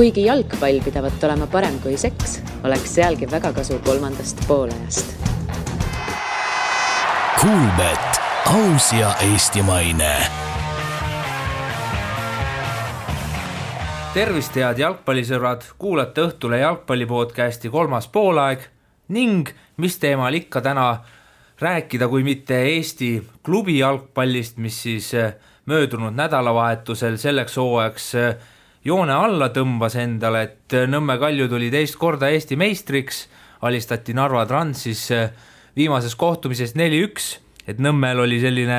Kuigi jalgpall pidavat olema parem kui seks, oleks sealgi väga kasu kolmandast poolajast. Kuulbet, aus ja eestimaine. Tervist head jalgpallisõbrad, kuulate Õhtule jalgpallipodcasti 3. poolaeg ning mis teemal ikka täna rääkida, kui mitte Eesti klubi jalgpallist, mis siis möödunud nädalavahetusel selleks hooajaks joone alla tõmbas endale, et Nõmme Kalju tuli teist korda Eesti meistriks, alistati Narva Transis viimases kohtumises 4-1, et Nõmmel oli selline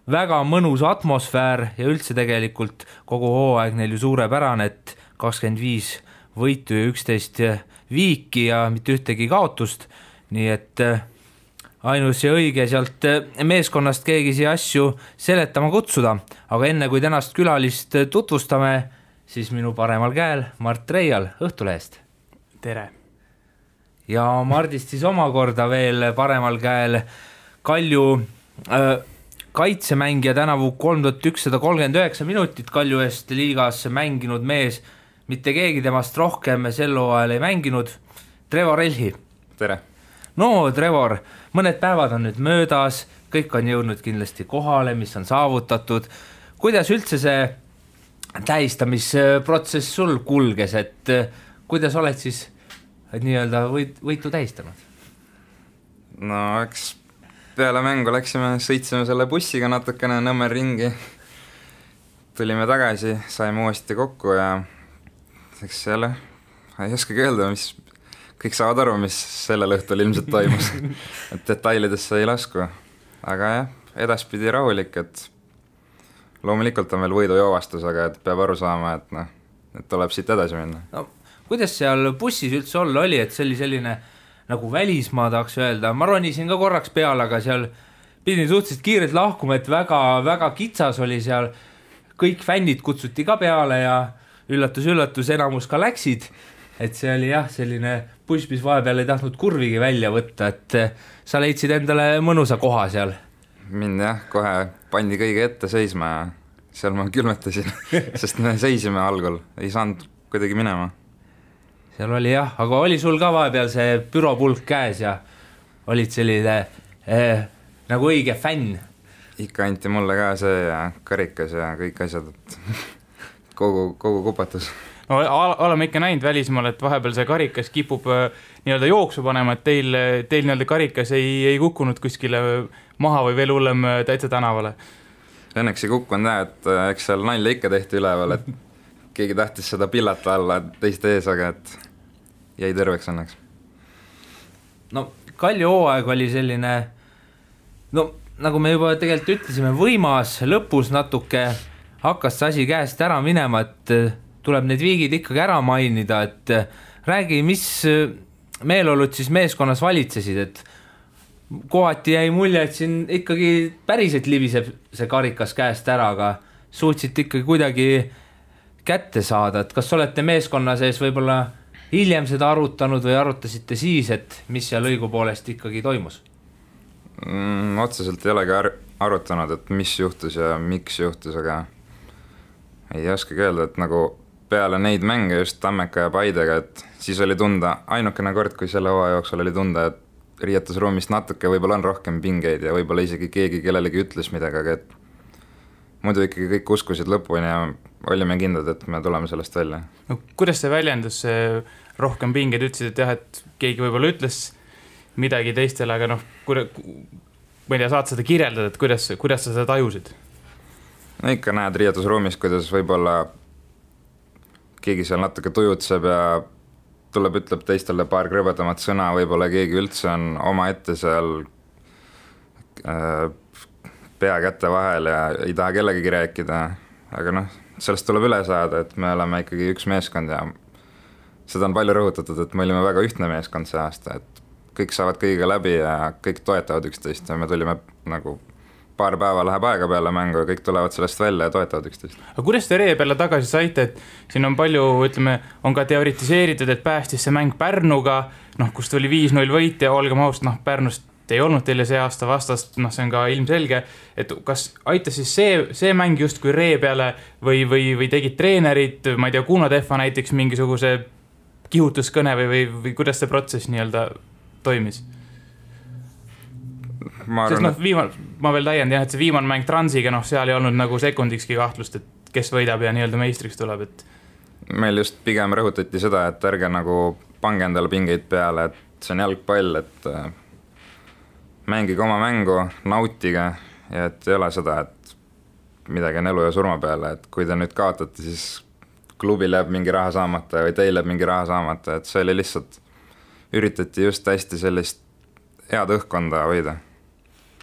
väga mõnus atmosfäär ja üldse tegelikult kogu hooaeg neil ju suurepärane, et 25 võitu ja 11 viiki ja mitte ühtegi kaotust, nii et ainus ja õige sealt meeskonnast keegi siia asju seletama kutsuda, aga enne kui tänast külalist tutvustame, siis minu paremal käel Mart Reial Õhtulehest. Tere! Ja Mardist siis omakorda veel paremal käel Kalju kaitsemängija tänavu 3139 minutit Kalju eest liigas mänginud mees, mitte keegi temast rohkem sel hooajal ei mänginud, Trevor Elhi. Tere! No Trevor, mõned päevad on nüüd möödas, kõik on jõudnud kindlasti kohale, mis on saavutatud. Kuidas üldse see tähistamisprotsess sul kulges, et kuidas oled siis nii-öelda võitu tähistanud? No eks peale mängu sõitsime selle bussiga natukene Nõmmel ringi, tulime tagasi, saime uuesti kokku ja eks jälle ei oskagi öelda, mis kõik saavad aru, mis sellel õhtul ilmselt toimus, et detailidesse ei lasku, aga jah, edaspidi rahulik, et loomulikult on veel võidujoovastus, aga et peab aru saama, et tuleb siit edasi minna. No, kuidas seal bussis üldse olla oli, et see oli selline nagu välismaa tahaks öelda, ma ronisin ka korraks peale, aga seal pidin suhteliselt kiirelt lahkuma, et väga kitsas oli seal, kõik fännid kutsuti ka peale ja üllatus, enamus ka läksid, et see oli jah, selline buss, mis vahepeal ei tahtnud kurvigi välja võtta, et sa leidsid endale mõnusa koha seal. Mind jah, kohe pandi kõige ette seisma ja seal ma külmetasin, sest me seisime algul, ei saanud kuidagi minema. Seal oli jah, aga oli sul ka vahepeal see büropulk käes ja olid selline nagu õige fänn? Ikka anti mulle ka see ja karikas ja kõik asjad, et kogu kupatus. No, oleme ikka näinud välismaal, et vahepeal see karikas kipub nii-öelda jooksu panema, et teil nii-öelda karikas ei kukkunud kuskile maha või veel hullem täitsa tänavale. Õnneks ei kukkunud, et eks seal nalja ikka tehti üleval, et keegi tahtis seda pillata alla teiste ees, aga et jäi terveks õnneks. No Kalju hooaeg oli selline, no nagu me juba tegelikult ütlesime, võimas, lõpus natuke hakkas see asi käest ära minema, et tuleb need viigid ikkagi ära mainida, et räägi, mis meeleolud siis meeskonnas valitsesid, et kohati jäi mulje, et siin ikkagi päriselt libiseb see karikas käest ära, aga suutsite ikkagi kuidagi kätte saada, et kas olete meeskonna sees võib-olla hiljem seda arutanud või arutasite siis, et mis seal õigupoolest ikkagi toimus? Otseselt ei olegi arutanud, et mis juhtus ja miks juhtus, aga ei oskagi öelda, et nagu peale neid mänge just Tammeka ja Paidega, et siis oli tunda, ainukene kord, kui selle hooaja jooksul oli tunda, et riietusruumist natuke võib-olla on rohkem pingeid ja võib-olla isegi keegi kellelegi ütles midagi, aga et muidu ikkagi kõik uskusid lõpuni ja olime kindlad, et me tuleme sellest välja. No, kuidas see väljendus rohkem pingeid, ütlesid, et jah, et keegi võib-olla ütles midagi teistele, aga ma ei tea, saad seda kirjeldada, et kuidas sa seda tajusid? No ikka näed riietusruumis, kuidas võib-olla keegi seal natuke tujutseb ja ütleb teistele paar krõbedamat sõna, võib-olla keegi üldse on oma ette seal pea kätte vahel ja ei taha kellegagi rääkida, aga sellest tuleb üle saada, et me oleme ikkagi üks meeskond ja seda on palju rõhutatud, et me olime väga ühtne meeskond see aasta, et kõik saavad kõigiga läbi ja kõik toetavad üksteist ja me tulime nagu paar päeva läheb aega peale mängu ja kõik tulevad sellest välja ja toetavad üksteist. Aga kuidas te Ree peale tagasi saite, et siin on palju, ütleme, on ka teoritiseeritud, et päästis see mäng Pärnuga, kus tuli 5-0 võit ja olgem ausalt, Pärnust ei olnud teile see aasta vastast, noh, see on ka ilmselge, et kas aitas siis see mäng just kui ree peale või tegid treenerid, ma ei tea, Kuno Tehva näiteks mingisuguse kihutuskõne või kuidas see protsess nii-öelda toimis? Sest noh, ma veel täiendan, et see viimane mäng Transiga, noh, seal ei olnud nagu sekundikski kahtlust, et kes võidab ja nii-öelda meistriks tuleb, et meil just pigem rõhutati seda, et ärge nagu pange endale pingeid peale, et see on jalgpall, et mängige oma mängu, nautige ja et ei ole seda, et midagi on elu ja surma peale, et kui te nüüd kaotate, siis klubil jääb mingi raha saamata või teil jääb mingi raha saamata, et see oli lihtsalt, üritati just hästi sellist head õhkkonda hoida.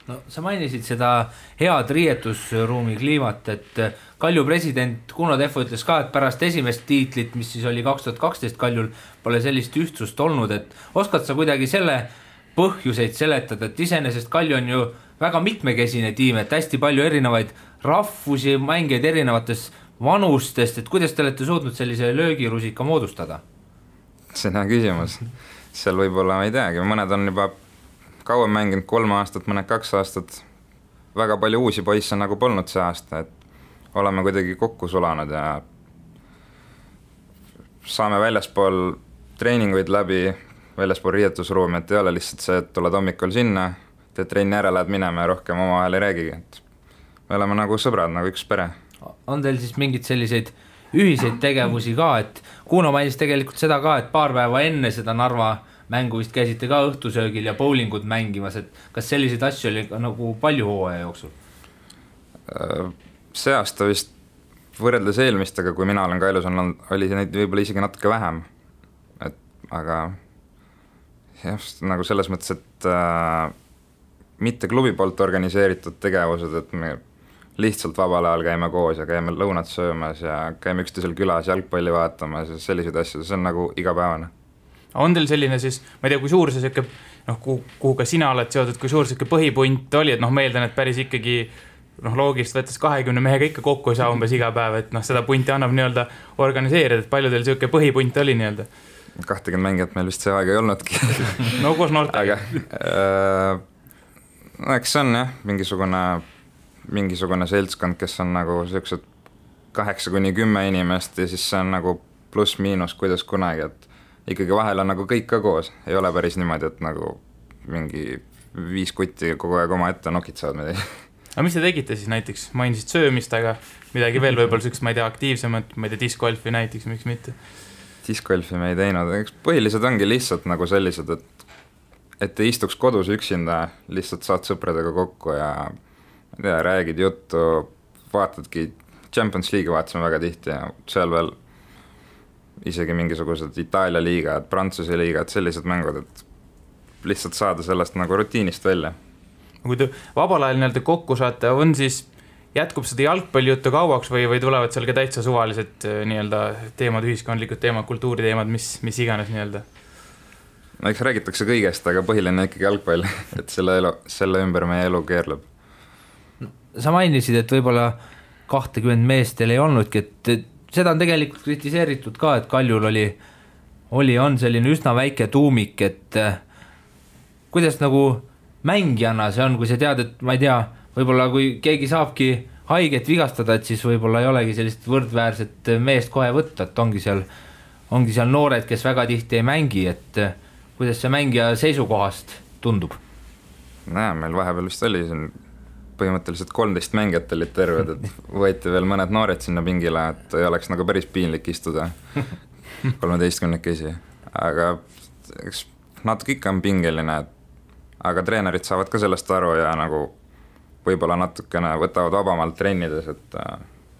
No sa mainisid seda head riietusruumi kliimat, et Kalju president Kuno Tehva ütles ka, et pärast esimest tiitlit, mis siis oli 2012 Kaljul, pole sellist ühtsust olnud, et oskad sa kuidagi selle põhjuseid seletada, et iseenesest Kalju on ju väga mitmekesine tiim, et hästi palju erinevaid rahvusi, mängijaid erinevatest vanustest, et kuidas te olete suutnud sellise löögirusika moodustada? See on hea küsimus. Seal võib-olla ma ei teagi, mõned on juba kauem mänginud 3 aastat, mõned 2 aastat. Väga palju uusi poisse nagu polnud see aasta, et oleme kuidagi kokku sulanud ja saame väljaspool treeninguid läbi, väljaspool riietusruumi, et ei ole lihtsalt see, et tuled hommikul sinna, teed trenni ära, lähed minema ja rohkem omavahel ei räägigi, et me oleme nagu sõbrad, nagu üks pere. On teil siis mingid selliseid ühiseid tegevusi ka, et Kuno mainis tegelikult seda ka, et paar päeva enne seda Narva mängu vist käisite ka õhtusöögil ja bowlingud mängimas, et kas selliseid asju oli nagu palju hooaja jooksul? See aasta vist võrreldes eelmistega, kui mina olen Kailus olnud, oli neid võib-olla isegi natuke vähem, aga jah, nagu selles mõttes, et mitte klubi poolt organiseeritud tegevused, et me lihtsalt vabal ajal käime koos ja käime lõunat söömas ja käime üksteisel külas jalgpalli vaatamas ja selliseid asju, see on nagu igapäevane. On teil selline siis, ma ei tea, kui suur see siuke, noh, kuhu ka sina oled seotud, kui suur siuke põhipunt oli, et noh, meeldan, et päris ikkagi noh, loogist võttes 20 mehega ikka kokku ei saa umbes iga päev, et noh, seda punti annab nii-öelda organiseerida, et palju teil siuke põhipunt oli nii-öelda? 20 mängijat meil vist see aeg ei olnudki. No koos noortega. No eks see on jah, mingisugune seltskond, kes on nagu siuksed 8-10 inimest ja siis see on nagu pluss-miinus, kuidas kunagi, et ikkagi vahel on nagu kõik ka koos, ei ole päris niimoodi, et nagu mingi 5 kutti kogu aeg oma ette nokitsevad midagi. Aga mis te tegite siis näiteks? Mainisid söömist, aga midagi veel võib-olla sükst, ma ei tea, aktiivsemat, ma ei tea, discgolfi näiteks, miks mitte? Discgolfi me ei teinud, eks põhilised ongi lihtsalt nagu sellised, et ei istuks kodus üksinda, lihtsalt saad sõpradega kokku ja ma ei tea, räägid juttu, vaatadki, Champions League vaatasime väga tihti ja seal veel isegi mingisugused Itaalia liigad, Prantsuse liigad, sellised mängud, et lihtsalt saada sellest nagu rutiinist välja. Kui te vabal ajal nii-öelda kokku saate, on siis jätkub seda jalgpallijuttu kauaks või tulevad seal ka täitsa suvalised nii-öelda teemad, ühiskondlikud teemad, kultuuriteemad, mis iganes nii-öelda? No eks räägitakse kõigest, aga põhiline ikkagi jalgpall, et selle ümber meie elu keerleb. Sa mainisid, et võib-olla 20 meest teil ei olnudki, et seda on tegelikult kritiseeritud ka, et Kaljul on selline üsna väike tuumik, et kuidas nagu mängijana see on, kui sa tead, et ma ei tea, võib-olla kui keegi saabki haiget vigastada, et siis võib-olla ei olegi sellist võrdväärset meest kohe võtta, et ongi seal noored, kes väga tihti ei mängi, et kuidas see mängija seisukohast tundub? Näe, meil vahepeal vist oli siin põhimõtteliselt 13 mängijat olid terved, et võeti veel mõned noored sinna pingile, et ei oleks nagu päris piinlik istuda 13-kesi, aga eks natuke ikka on pingeline, aga treenerid saavad ka sellest aru ja nagu võib-olla natukene võtavad vabamalt trennides, et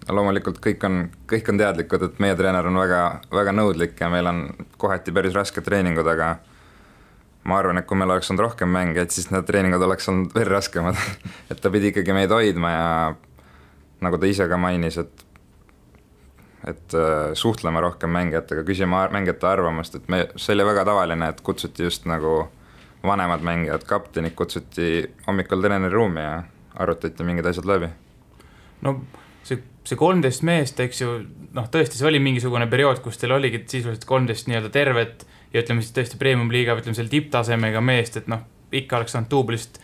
loomulikult kõik on teadlikud, et meie treener on väga, väga nõudlik ja meil on kohati päris raske treeningud, aga ma arvan, et kui meil oleks olnud rohkem mänge, et siis need treeningud oleks olnud veel raskemad, et ta pidi ikkagi meid hoidma ja nagu ta ise ka mainis, et suhtlema rohkem mängijatega, küsima mängijate arvamust, et see oli väga tavaline, et kutsuti just nagu vanemad mängijad, kaptenid kutsuti hommikul treeneri ruumi ja arutati mingid asjad läbi. No see 13 meest, eks ju, noh tõesti, see oli mingisugune periood, kus teil oligi sisuliselt 13 nii-öelda tervet ja ütleme siis tõesti premium liiga, ütleme selle tipptasemega meest, et noh, ikka oleks saanud duublist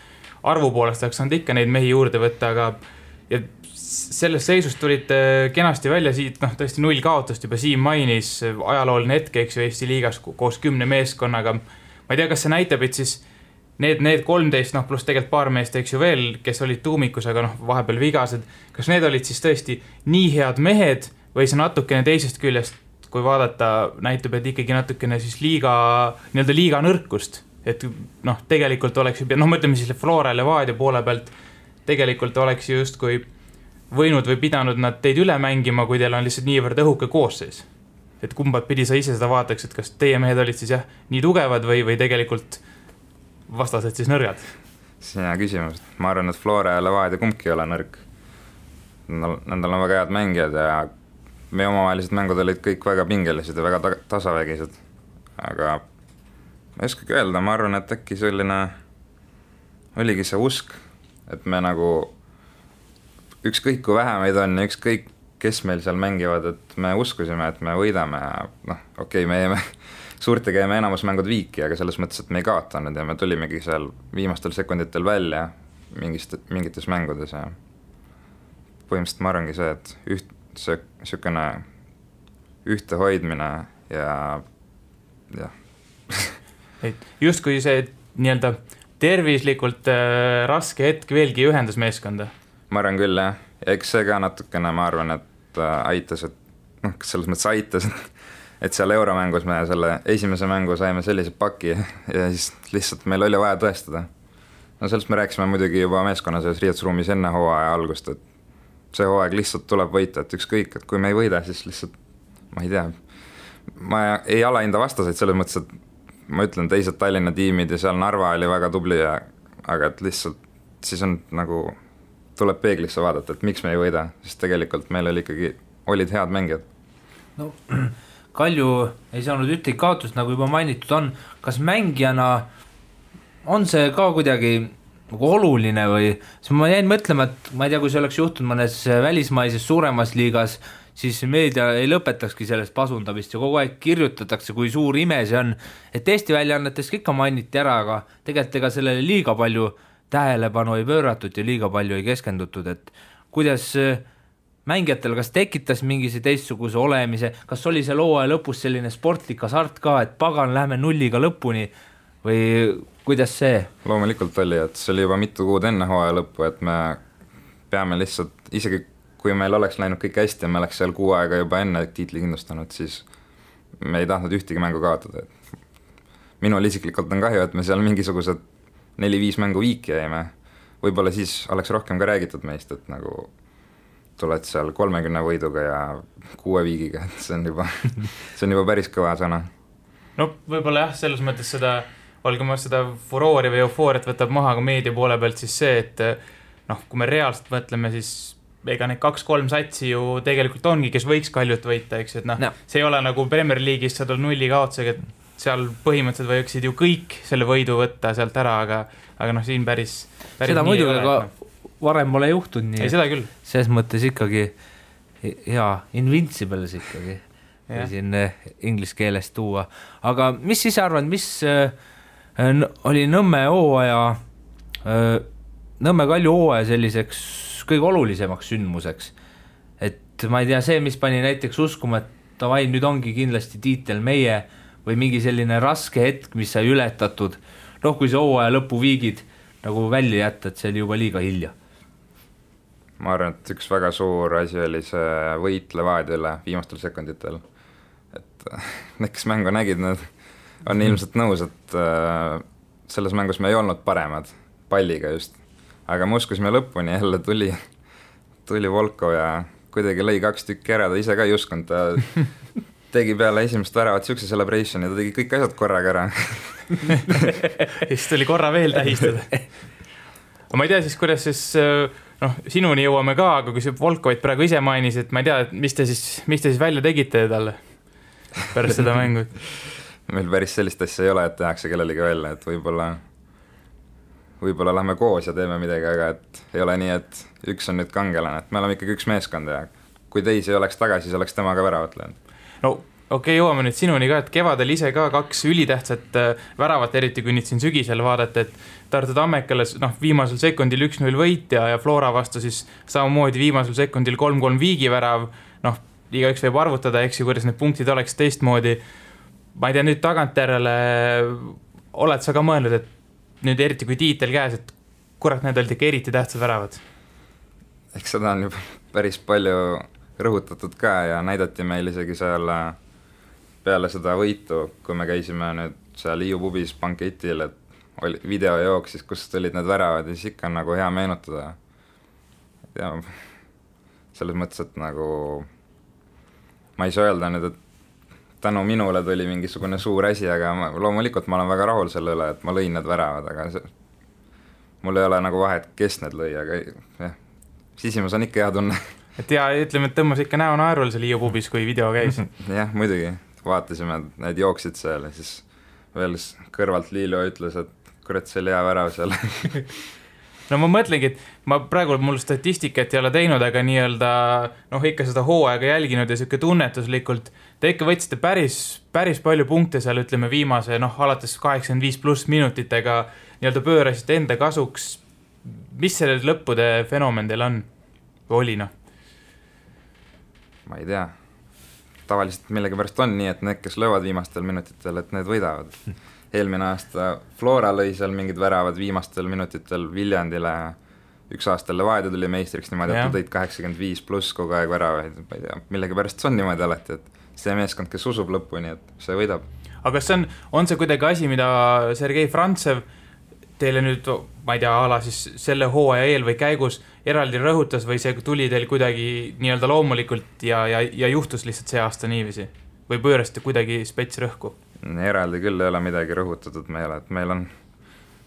arvu poolest, oleks saanud ikka neid mehi juurde võtta, aga ja sellest seisust tulid kenasti välja siit, tõesti 0 kaotust juba Siim mainis, ajalooline hetk, eks ju, Eesti liigas koos 10 meeskonnaga. Ma ei tea, kas see näitab, et siis need 13, pluss tegelikult paar meest, eks ju veel, kes olid tuumikus, aga vahepeal vigased, kas need olid siis tõesti nii head mehed või see natukene teisest küljest, kui vaadata, näitab, et ikkagi natukene siis liiga nõrkust, et tegelikult oleks ju, ma ütleme siis Flora Levadia poole pealt, tegelikult oleks justkui võinud või pidanud nad teid üle mängima, kui teil on lihtsalt niivõrd õhuke koosseis. Et kumbat pidi sa ise seda vaataks, et kas teie mehed olid siis nii tugevad või tegelikult vastased siis nõrgad? See on hea küsimus. Ma arvan, et Flora ja Levadia kumbki ei ole nõrk. Nendel on väga head mängijad ja meie omavahelised mängud olid kõik väga pingelised ja väga tasavägised. Aga ma ei oskagi öelda, ma arvan, et äkki selline oligi see usk, et me nagu ükskõik kui vähe meid on ja ükskõik kes meil seal mängivad, et me uskusime, et me võidame ja me jäime suurtega jäime enamus mängud viiki, aga selles mõttes, et me ei kaotanud ja me tulimegi seal viimastel sekunditel välja mingites mängudes ja põhimõtteliselt ma arvangi see, et sükene ühte hoidmine ja just kui see nii-öelda tervislikult raske hetk veelgi ühendas meeskonda. Ma arvan küll, jah. Ja eks see ka natukene, ma arvan, et aitas, et selles mõttes aitas, et seal euromängus me selle esimese mängu saime sellise paki ja siis lihtsalt meil oli vaja tõestada. Sellest me rääkisime muidugi juba meeskonna selles riietusruumis enne hooaja algust, et see hooaeg lihtsalt tuleb võita, et ükskõik, et kui me ei võida, siis lihtsalt, ma ei tea, ma ei alahinda vastaseid selles mõttes, et ma ütlen teised Tallinna tiimid ja seal Narva oli väga tubli, aga et lihtsalt siis on nagu tuleb peeglisse vaadata, et miks me ei võida, sest tegelikult meil olid head mängijad. No, Kalju ei saanud ühtegi kaotust, nagu juba mainitud on. Kas mängijana on see ka kuidagi nagu oluline või? Ma jäin mõtlema, et ma ei tea, kui see oleks juhtunud mõnes välismaises suuremas liigas, siis meedia ei lõpetakski sellest pasundamist ja kogu aeg kirjutatakse, kui suur ime see on. Et Eesti väljaannetes ikka mainiti ära, aga tegelikult ega sellele liiga palju tähelepanu ei pööratud ja liiga palju ei keskendutud, et kuidas mängijatel kas tekitas mingise teistsuguse olemise, kas oli see hooaja lõpus selline sportlik hasart ka, et pagan, lähme 0-ga lõpuni või kuidas see? Loomulikult oli, et see oli juba mitu kuud enne hooaja lõppu, et me peame lihtsalt, isegi kui meil oleks läinud kõik hästi ja me oleks seal 6 aega juba enne tiitli kindlustanud, siis me ei tahtnud ühtegi mängu kaotada. Minul isiklikult on kahju, et me seal mingisugused 4-5 mängu viiki jäime. Võib-olla siis oleks rohkem ka räägitud meist, et nagu tuled seal 30 võiduga ja 6 viigiga, et see on juba päris kõva sõna. No võib-olla jah, selles mõttes seda, olgu ma seda furoori või eufooriat võtab maha ka meedia poole pealt, siis see, et kui me reaalselt mõtleme, siis ega need 2-3 satsi ju tegelikult ongi, kes võiks Kaljut võita, eks, et see ei ole nagu Premier League'is sa tuled 0 kaotusega, et seal põhimõtteliselt võiksid ju kõik selle võidu võtta sealt ära, aga siin päris seda muidugi, aga varem pole juhtunud nii. Ei, seda küll. Selles mõttes ikkagi hea, invincibles ikkagi, siin inglise keeles tuua. Aga mis siis arvad, mis oli Nõmme Kalju hooaja selliseks kõige olulisemaks sündmuseks? Et ma ei tea, see, mis pani näiteks uskuma, et davai, nüüd ongi kindlasti tiitel meie või mingi selline raske hetk, mis sai ületatud, kui see hooaja lõpu viigid nagu välja jätta, et see oli juba liiga hilja. Ma arvan, et üks väga suur asi oli see võit Levadiale viimastel sekunditel. Et need, kes mängu nägid, need on ilmselt nõus, et selles mängus me ei olnud paremad palliga just. Aga me uskusime lõpuni, jälle tuli Volkov ja kuidagi lõi 2 tükki ära, ta ise ka ei uskunud, ta tegi peale esimest väravat siukse celebration ja ta tegi kõik asjad korraga ära. Siis tuli korra veel tähistada. Ma ei tea siis, kuidas siis, sinuni jõuame ka, aga kui see Volkovit praegu ise mainis, et ma ei tea, mis te siis välja tegite talle pärast seda mängu? Meil päris sellist asja ei ole, et tehakse kellelegi välja, et võib-olla lähme koos ja teeme midagi, aga et ei ole nii, et üks on nüüd kangelane, et me oleme ikkagi üks meeskond ja kui teisi oleks tagasi, siis oleks tema ka väravat löönud. No okei, jõuame nüüd sinuni ka, et kevadel ise ka 2 ülitähtsat väravat, eriti kui nüüd siin sügisel vaadata, et Tartu Tammekale viimasel sekundil 1-0 võit ja Flora vastu siis samamoodi viimasel sekundil 3-3 viigivärav, igaüks võib arvutada, eks ju, kuidas need punktid oleks teistmoodi. Ma ei tea, nüüd tagantjärele oled sa ka mõelnud, et nüüd eriti kui tiitel käes, et kurat, need olid ikka eriti tähtsad väravad? Eks seda on juba päris palju rõhutatud ka ja näidati meil isegi seal peale seda võitu, kui me käisime nüüd seal Hiiu pubis banketil, et oli video jooksis, kus olid need väravad ja siis ikka on nagu hea meenutada. Ja selles mõttes, et nagu ma ei saa öelda nüüd, et tänu minule tuli mingisugune suur asi, aga loomulikult ma olen väga rahul selle üle, et ma lõin need väravad, aga mul ei ole nagu vahet, kes need lõi, aga jah, sisimas on ikka hea tunne. Et ja ütleme, et tõmbas ikka näo naerul seal Hiiu pubis, kui video käis. Jah, muidugi, vaatasime, need jooksid seal ja siis veel kõrvalt Liilo ütles, et kurat, see oli hea värav seal. No ma mõtlengi, et ma praegu mul statistikat ei ole teinud, aga nii-öelda ikka seda hooaega jälginud ja siuke tunnetuslikult, te ikka võtsite päris palju punkte seal, ütleme viimase, alates 85+ minutitega nii-öelda pöörasite enda kasuks. Mis selle lõppude fenomen teil on? Või oli, Ma ei tea. Tavaliselt millegi pärast on nii, et need, kes löövad viimastel minutitel, et need võidavad. Eelmine aasta Flora lõi seal mingid väravad viimastel minutitel Viljandile, üks aasta Levadia tuli meistriks niimoodi, et tõid 85+ kogu aeg väravaid. Ma ei tea, millegi pärast see on niimoodi alati, et see meeskond, kes usub lõpuni, et see võidab. Aga kas on see kuidagi asi, mida Sergei Frantsev teile nüüd, ma ei tea, ala siis selle hooaja eel või käigus eraldi rõhutas või see tuli teil kuidagi nii-öelda loomulikult ja juhtus lihtsalt see aasta niiviisi? Või pöörasite kuidagi spets rõhku? Eraldi küll ei ole midagi rõhutatud meile, et meil on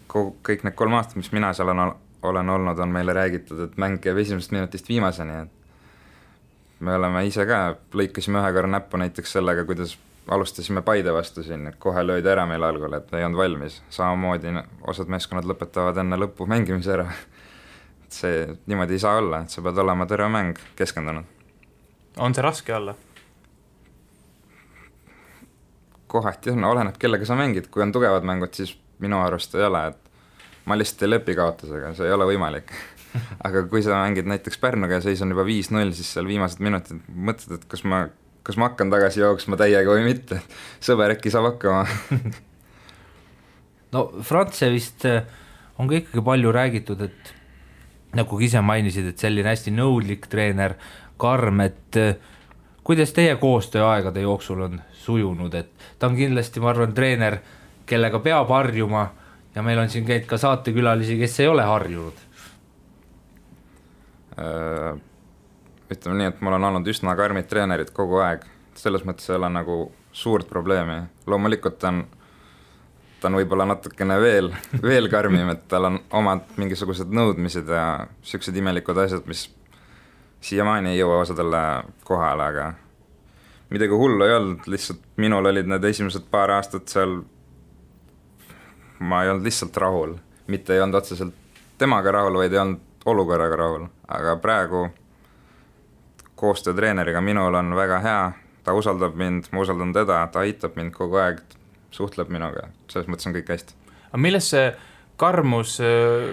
kõik need 3 aastat, mis mina seal olen olnud, on meile räägitud, et mäng käib esimesest minutist viimaseni, et me oleme ise ka, lõikasime ühe korra näppu näiteks sellega, kuidas alustasime Paide vastu siin, et kohe löödi ära meil algul, et ei olnud valmis. Samamoodi osad meeskonnad lõpetavad enne lõppu mängimise ära. See niimoodi ei saa olla, et sa pead olema terve mäng keskendunud. On see raske olla? Kohati on, oleneb kellega sa mängid. Kui on tugevad mängud, siis minu arust ei ole, et ma lihtsalt ei lepi kaotusega, see ei ole võimalik. Aga kui sa mängid näiteks Pärnuga ja seis on juba 5-0, siis seal viimased minutid mõtled, et kas ma hakkan tagasi jooksma täiega või mitte. Sõber äkki saab hakkama. No Frantsevist on ka ikkagi palju räägitud, et nagu ise mainisid, et selline hästi nõudlik treener, karm, et kuidas teie koostööaegade jooksul on sujunud, et ta on kindlasti, ma arvan, treener, kellega peab harjuma ja meil on siin käid ka saatekülalisi, kes ei ole harjunud. Ütleme nii, et mul on olnud üsna karmid treenerid kogu aeg, selles mõttes ei ole nagu suurt probleemi. Loomulikult ta on võib-olla natukene veel karmim, et tal on omad mingisugused nõudmised ja sellised imelikud asjad, mis siiamaani ei jõua osadele kohale, aga midagi hullu ei olnud, lihtsalt minul olid need esimesed paar aastat seal, ma ei olnud lihtsalt rahul, mitte ei olnud otseselt temaga rahul, vaid ei olnud olukorraga rahul, aga praegu koostöö treeneriga minul on väga hea, ta usaldab mind, ma usaldan teda, ta aitab mind kogu aeg, suhtleb minuga, selles mõttes on kõik hästi. Aga milles see karmus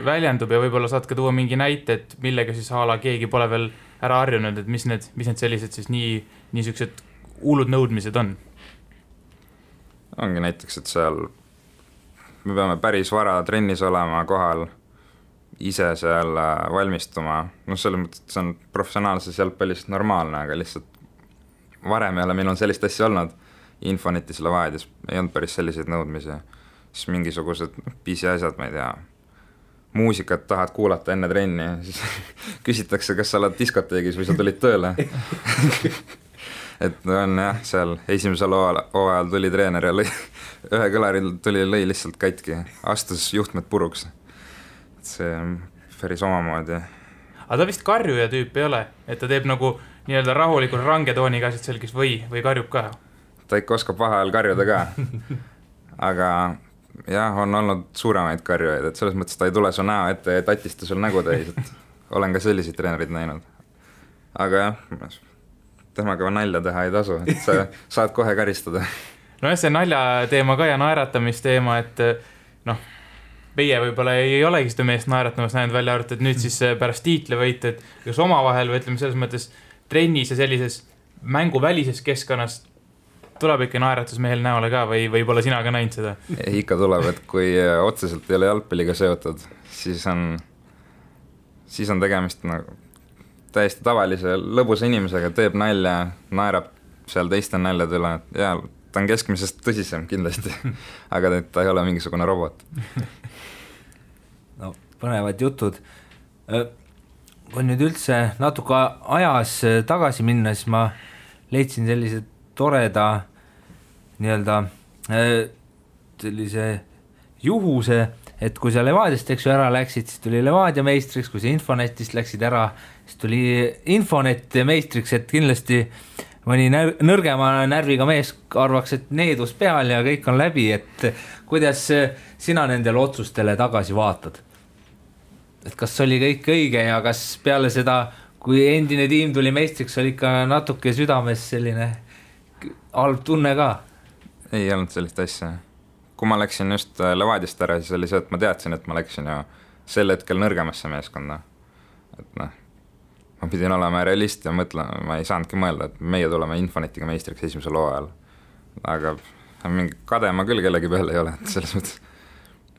väljendub ja võib-olla saad ka tuua mingi näite, et millega siis ala keegi pole veel ära harjunud, et mis need sellised siis niisugused hullud nõudmised on? Ongi näiteks, et seal me peame päris vara trennis olema kohal, ise seal valmistuma, selles mõttes, et see on professionaalses jalgpallis normaalne, aga lihtsalt varem ei ole minul sellist asja olnud. Infonetis Levadias ei olnud päris selliseid nõudmisi, siis mingisugused pisiasjad, ma ei tea, muusikat tahad kuulata enne trenni, siis küsitakse, kas sa oled diskoteegis või sa tulid tööle. Et on jah, seal esimesel hooajal tuli treener ja ühe kõlaril lõi lihtsalt katki, astus juhtmed puruks. See on päris omamoodi. Aga ta vist karjuja tüüp ei ole, et ta teeb nagu nii-öelda rahulikult range tooniga asjad selgis või karjub ka? Ta ikka oskab vahel karjuda ka, aga jah, on olnud suuremaid karjujaid, et selles mõttes ta ei tule su näo ette ja tatista sul nägu täis, et olen ka selliseid treenerid näinud. Aga jah, temaga nalja teha ei tasu, et sa saad kohe karistada. No jah, see nalja teema ka ja naeratamise et noh, meie võib-olla ei olegi seda meest naeratamas näinud välja arvatud, et nüüd siis pärast tiitlivõit, et kas omavahel või ütleme selles mõttes trennis ja sellises mänguvälises keskkonnas tuleb ikka naeratus mehel näole ka või pole sina ka näinud seda? Ikka tuleb, et kui otseselt ei ole jalgpalliga seotud, siis on tegemist nagu täiesti tavalise lõbusa inimesega, teeb nalja, naerab seal teiste naljad üle ja ta on keskmisest tõsisem kindlasti, aga ta ei ole mingisugune robot. No, põnevad jutud. Kui nüüd üldse natuke ajas tagasi minna, siis ma leidsin sellise toreda nii-öelda sellise juhuse, et kui sa Levadiast ära läksid, siis tuli Levadia meistriks, kui sa Infonetist läksid ära, siis tuli Infonet meistriks, et kindlasti mõni nõrgema närviga mees arvaks, et needus peal ja kõik on läbi, et kuidas sina nendele otsustele tagasi vaatad? Et kas oli kõik õige ja kas peale seda, kui endine tiim tuli meistriks, oli ikka natuke südames selline halb tunne ka? Ei olnud sellist asja. Kui ma läksin just Levadiast ära, siis oli see, et ma teadsin, et ma läksin ju sel hetkel nõrgemasse meeskonda. Et noh, ma pidin olema realist ja mõtlema, ma ei saanudki mõelda, et meie tuleme Infonetiga meistriks esimesel hooajal. Aga mingi kade ma küll kellegi peale ei ole, et selles mõttes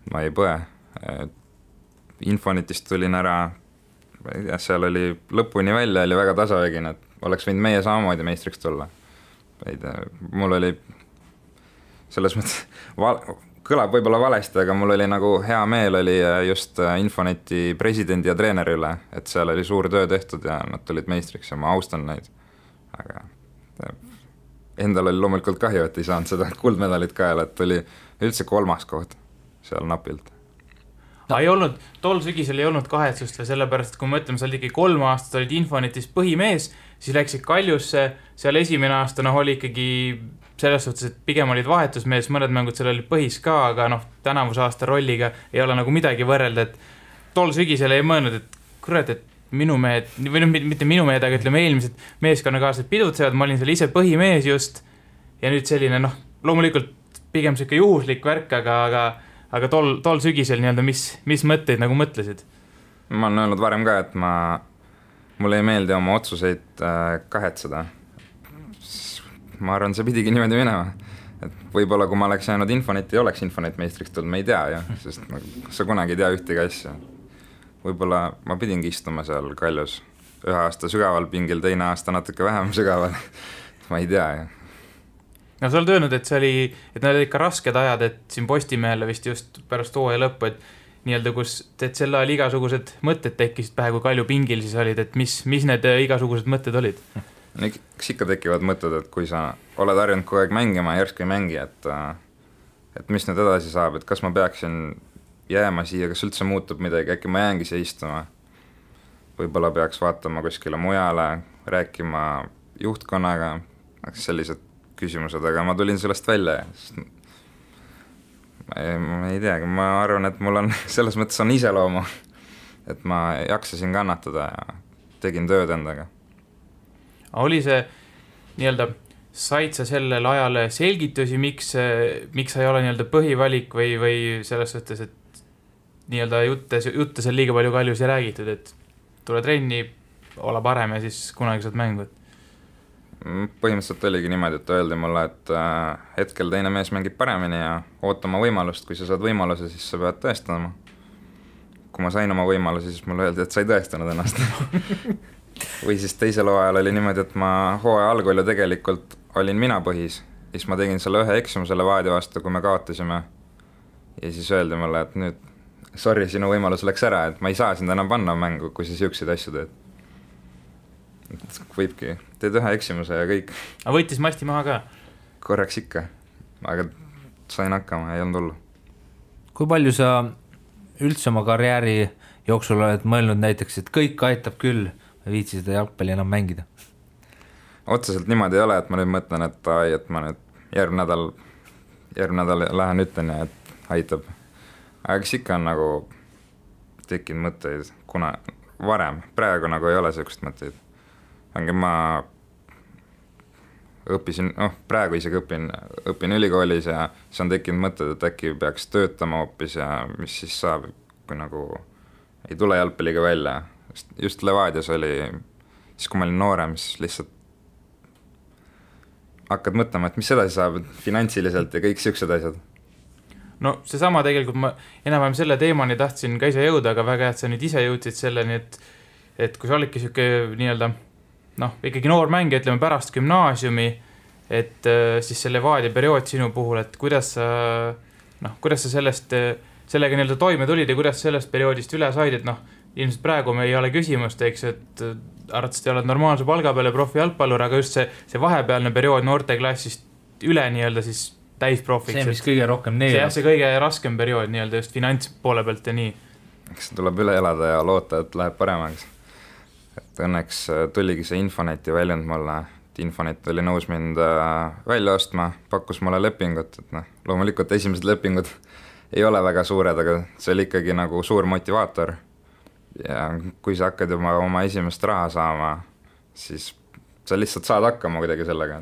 ma ei põe. Infonetist tulin ära, ja seal oli lõpuni välja, oli väga tasavägine, et oleks võinud meie samamoodi meistriks tulla. Mul oli selles mõttes, kõlab võib-olla valesti, aga mul oli nagu hea meel oli just Infoneti presidendi ja treeneri üle, et seal oli suur töö tehtud ja nad tulid meistriks ja ma austan neid. Aga endal oli loomulikult kahju, et ei saanud seda kuldmedalit kaela, et oli üldse 3. koht seal napilt. Ei olnud, tol sügisel ei olnud kahetsust või sellepärast, et kui me mõtleme, sa olid ikkagi 3 aastat, olid Infonetis põhimees, siis läksid Kaljusse, seal esimene aasta oli ikkagi selles suhtes, et pigem olid vahetusmees, mõned mängud seal olid põhis ka, aga tänavuse aasta rolliga ei ole nagu midagi võrrelda, et tol sügisel ei mõelnud, et kurat, et minu mehed, või mitte minu mehed, aga ütleme eelmised meeskonnakaaslased pidutsevad, ma olin seal ise põhimees just ja nüüd selline, loomulikult pigem siuke juhuslik värk, aga tol sügisel nii-öelda, mis mõtteid nagu mõtlesid? Ma olen öelnud varem ka, et mulle ei meeldi oma otsuseid kahetseda. Ma arvan, see pidigi niimoodi minema. Et võib-olla kui ma oleks jäänud Infoneti, oleks Infonet meistriks tulnud, me ei tea ju, sest sa kunagi ei tea ühtegi asja. Võib-olla ma pidingi istuma seal Kaljus 1 aasta sügaval pingil, teine aasta natuke vähem sügaval. Ma ei tea ju. No sa oled öelnud, et need olid ikka rasked ajad, et siin Postimehele vist just pärast hooaja lõppu, et nii-öelda kus selle ajal igasugused mõtted tekkisid pähe, kui Kalju pingil siis olid, et mis need igasugused mõtted olid? Eks ikka tekivad mõtted, et kui sa oled harjunud kogu aeg mängima ja järsku ei mängi, et mis nüüd edasi saab, et kas ma peaksin jääma siia, kas üldse muutub midagi, äkki ma jäängi siia istuma. Võib-olla peaks vaatama kuskile mujale, rääkima juhtkonnaga, sellised küsimused, aga ma tulin sellest välja. Ma ei teagi, ma arvan, et mul on selles mõttes on iseloomu, et ma jaksasin kannatada ja tegin tööd endaga. Oli see nii-öelda, said sa sellel ajal selgitusi, miks sa ei ole nii-öelda põhivalik või selles suhtes, et nii-öelda jutte seal liiga palju Kaljus ei räägitud, et tule trenni, ole parem ja siis kunagi saad mängu? Põhimõtteliselt oligi niimoodi, et öeldi mulle, et hetkel teine mees mängib paremini ja ootama võimalust, kui sa saad võimaluse, siis sa pead tõestama. Kui ma sain oma võimaluse, siis mulle öeldi, et sa ei tõestanud ennast. Või siis teisel hooajal oli niimoodi, et ma hooaja algul ju tegelikult olin mina põhis. Siis ma tegin selle 1 eksimuse Levadia vastu, kui me kaotasime. Ja siis öeldi mulle, et nüüd, sorry, sinu võimalus läks ära, et ma ei saa sind enam panna mängu, kui sa siukseid asju teed. Et võibki, teed 1 eksimuse ja kõik. Aga võitis masti maha ka? Korraks ikka, aga sain hakkama, ei olnud hullu. Kui palju sa üldse oma karjääri jooksul oled mõelnud näiteks, et kõik aitab küll, viitsi seda jalgpalli enam mängida? Otseselt niimoodi ei ole, et ma nüüd mõtlen, et ma nüüd järgmine nädal lähen ütlen ja et aitab. Aga kes ikka on nagu tekkinud mõtteid, kuna varem, praegu nagu ei ole sellist mõtteid. Ma õppisin, praegu isegi õpin ülikoolis ja siis on tekkinud mõtted, et äkki peaks töötama hoopis ja mis siis saab, kui nagu ei tule jalgpalliga välja. Just Levadias oli, siis kui ma olin noorem, siis lihtsalt hakkad mõtlema, et mis edasi saab finantsiliselt ja kõik siuksed asjad. No seesama tegelikult ma enam-vähem selle teemani tahtsin ka ise jõuda, aga väga hea, et sa nüüd ise jõudsid selleni, et kui sa olidki siuke nii-öelda ikkagi noor mängija, ütleme pärast gümnaasiumi, et siis see Levadia periood sinu puhul, et kuidas sa sellega nii-öelda toime tulid ja kuidas sellest perioodist üle said, et ilmselt praegu me ei ole küsimust, eks, et arvatavasti oled normaalse palga peale profi jalgpallur, aga just see vahepealne periood noorteklassist üle nii-öelda siis täisprofiks. See, mis kõige rohkem neelab. See kõige raskem periood nii-öelda just finantspoole pealt ja nii. Eks tuleb üle elada ja loota, et läheb paremaks. Et õnneks tuligi see Infoneti väljund mulle, et Infonet oli nõus mind välja ostma, pakkus mulle lepingut, et loomulikult esimesed lepingud ei ole väga suured, aga see oli ikkagi nagu suur motivaator. Ja kui sa hakkad juba oma esimest raha saama, siis sa lihtsalt saad hakkama kuidagi sellega.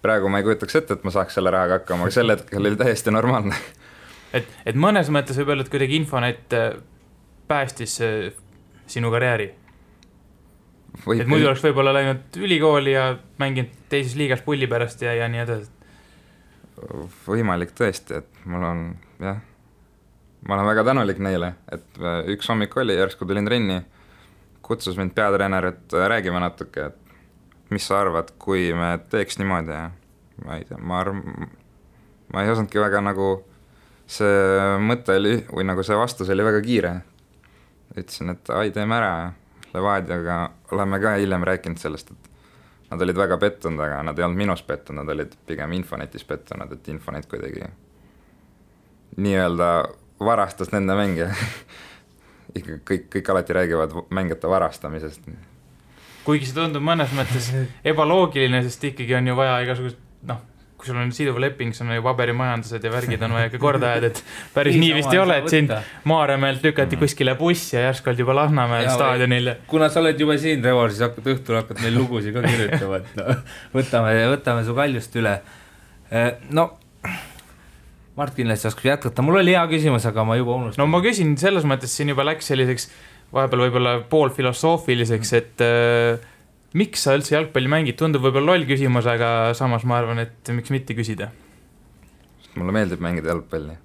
Praegu ma ei kujutaks ette, et ma saaks selle rahaga hakkama, aga sel hetkel oli täiesti normaalne. Et mõnes mõttes võib öelda, et kuidagi Infonet päästis sinu karjääri. Et muidu oleks võib-olla läinud ülikooli ja mänginud teises liigas pulli pärast ja nii edasi. Võimalik tõesti, et ma olen väga tänulik neile, et üks hommik oli, järsku tulin trenni, kutsus mind peatreener, et räägime natuke, et mis sa arvad, kui me teeks niimoodi ja ma ei tea, ma ei osandki väga nagu see mõte oli, või nagu see vastus oli väga kiire. Ütlesin, et teeme ära ja Levadiaga oleme ka hiljem rääkinud sellest, et nad olid väga pettunud, aga nad ei olnud minus pettunud, nad olid pigem Infonetis pettunud, et Infonet kuidagi nii-öelda varastas nende mänge. Ikka kõik alati räägivad mängijate varastamisest. Kuigi see tundub mõnes mõttes ebaloogiline, sest ikkagi on ju vaja igasugust, kui sul on siduv leping, sul on ju paberimajandused ja värgid on vaja ka korda ajad, et päris nii vist ei ole, et sind Maarjamäelt lükati kuskile bussi ja järsku olid juba Lasnamäel staadionil. Kuna sa oled juba siin, Revor, siis õhtul hakkad meil lugusid ka kirjutama, et võtame su kaljust üle. Mart kindlasti oskab jätkata. Mul oli hea küsimus, aga ma juba unustan. No ma küsin, selles mõttes siin juba läks selliseks vahepeal võib-olla pool filosoofiliseks, et miks sa üldse jalgpalli mängid? Tundub võib-olla loll küsimus, aga samas ma arvan, et miks mitte küsida? Mulle meeldib mängida jalgpalli.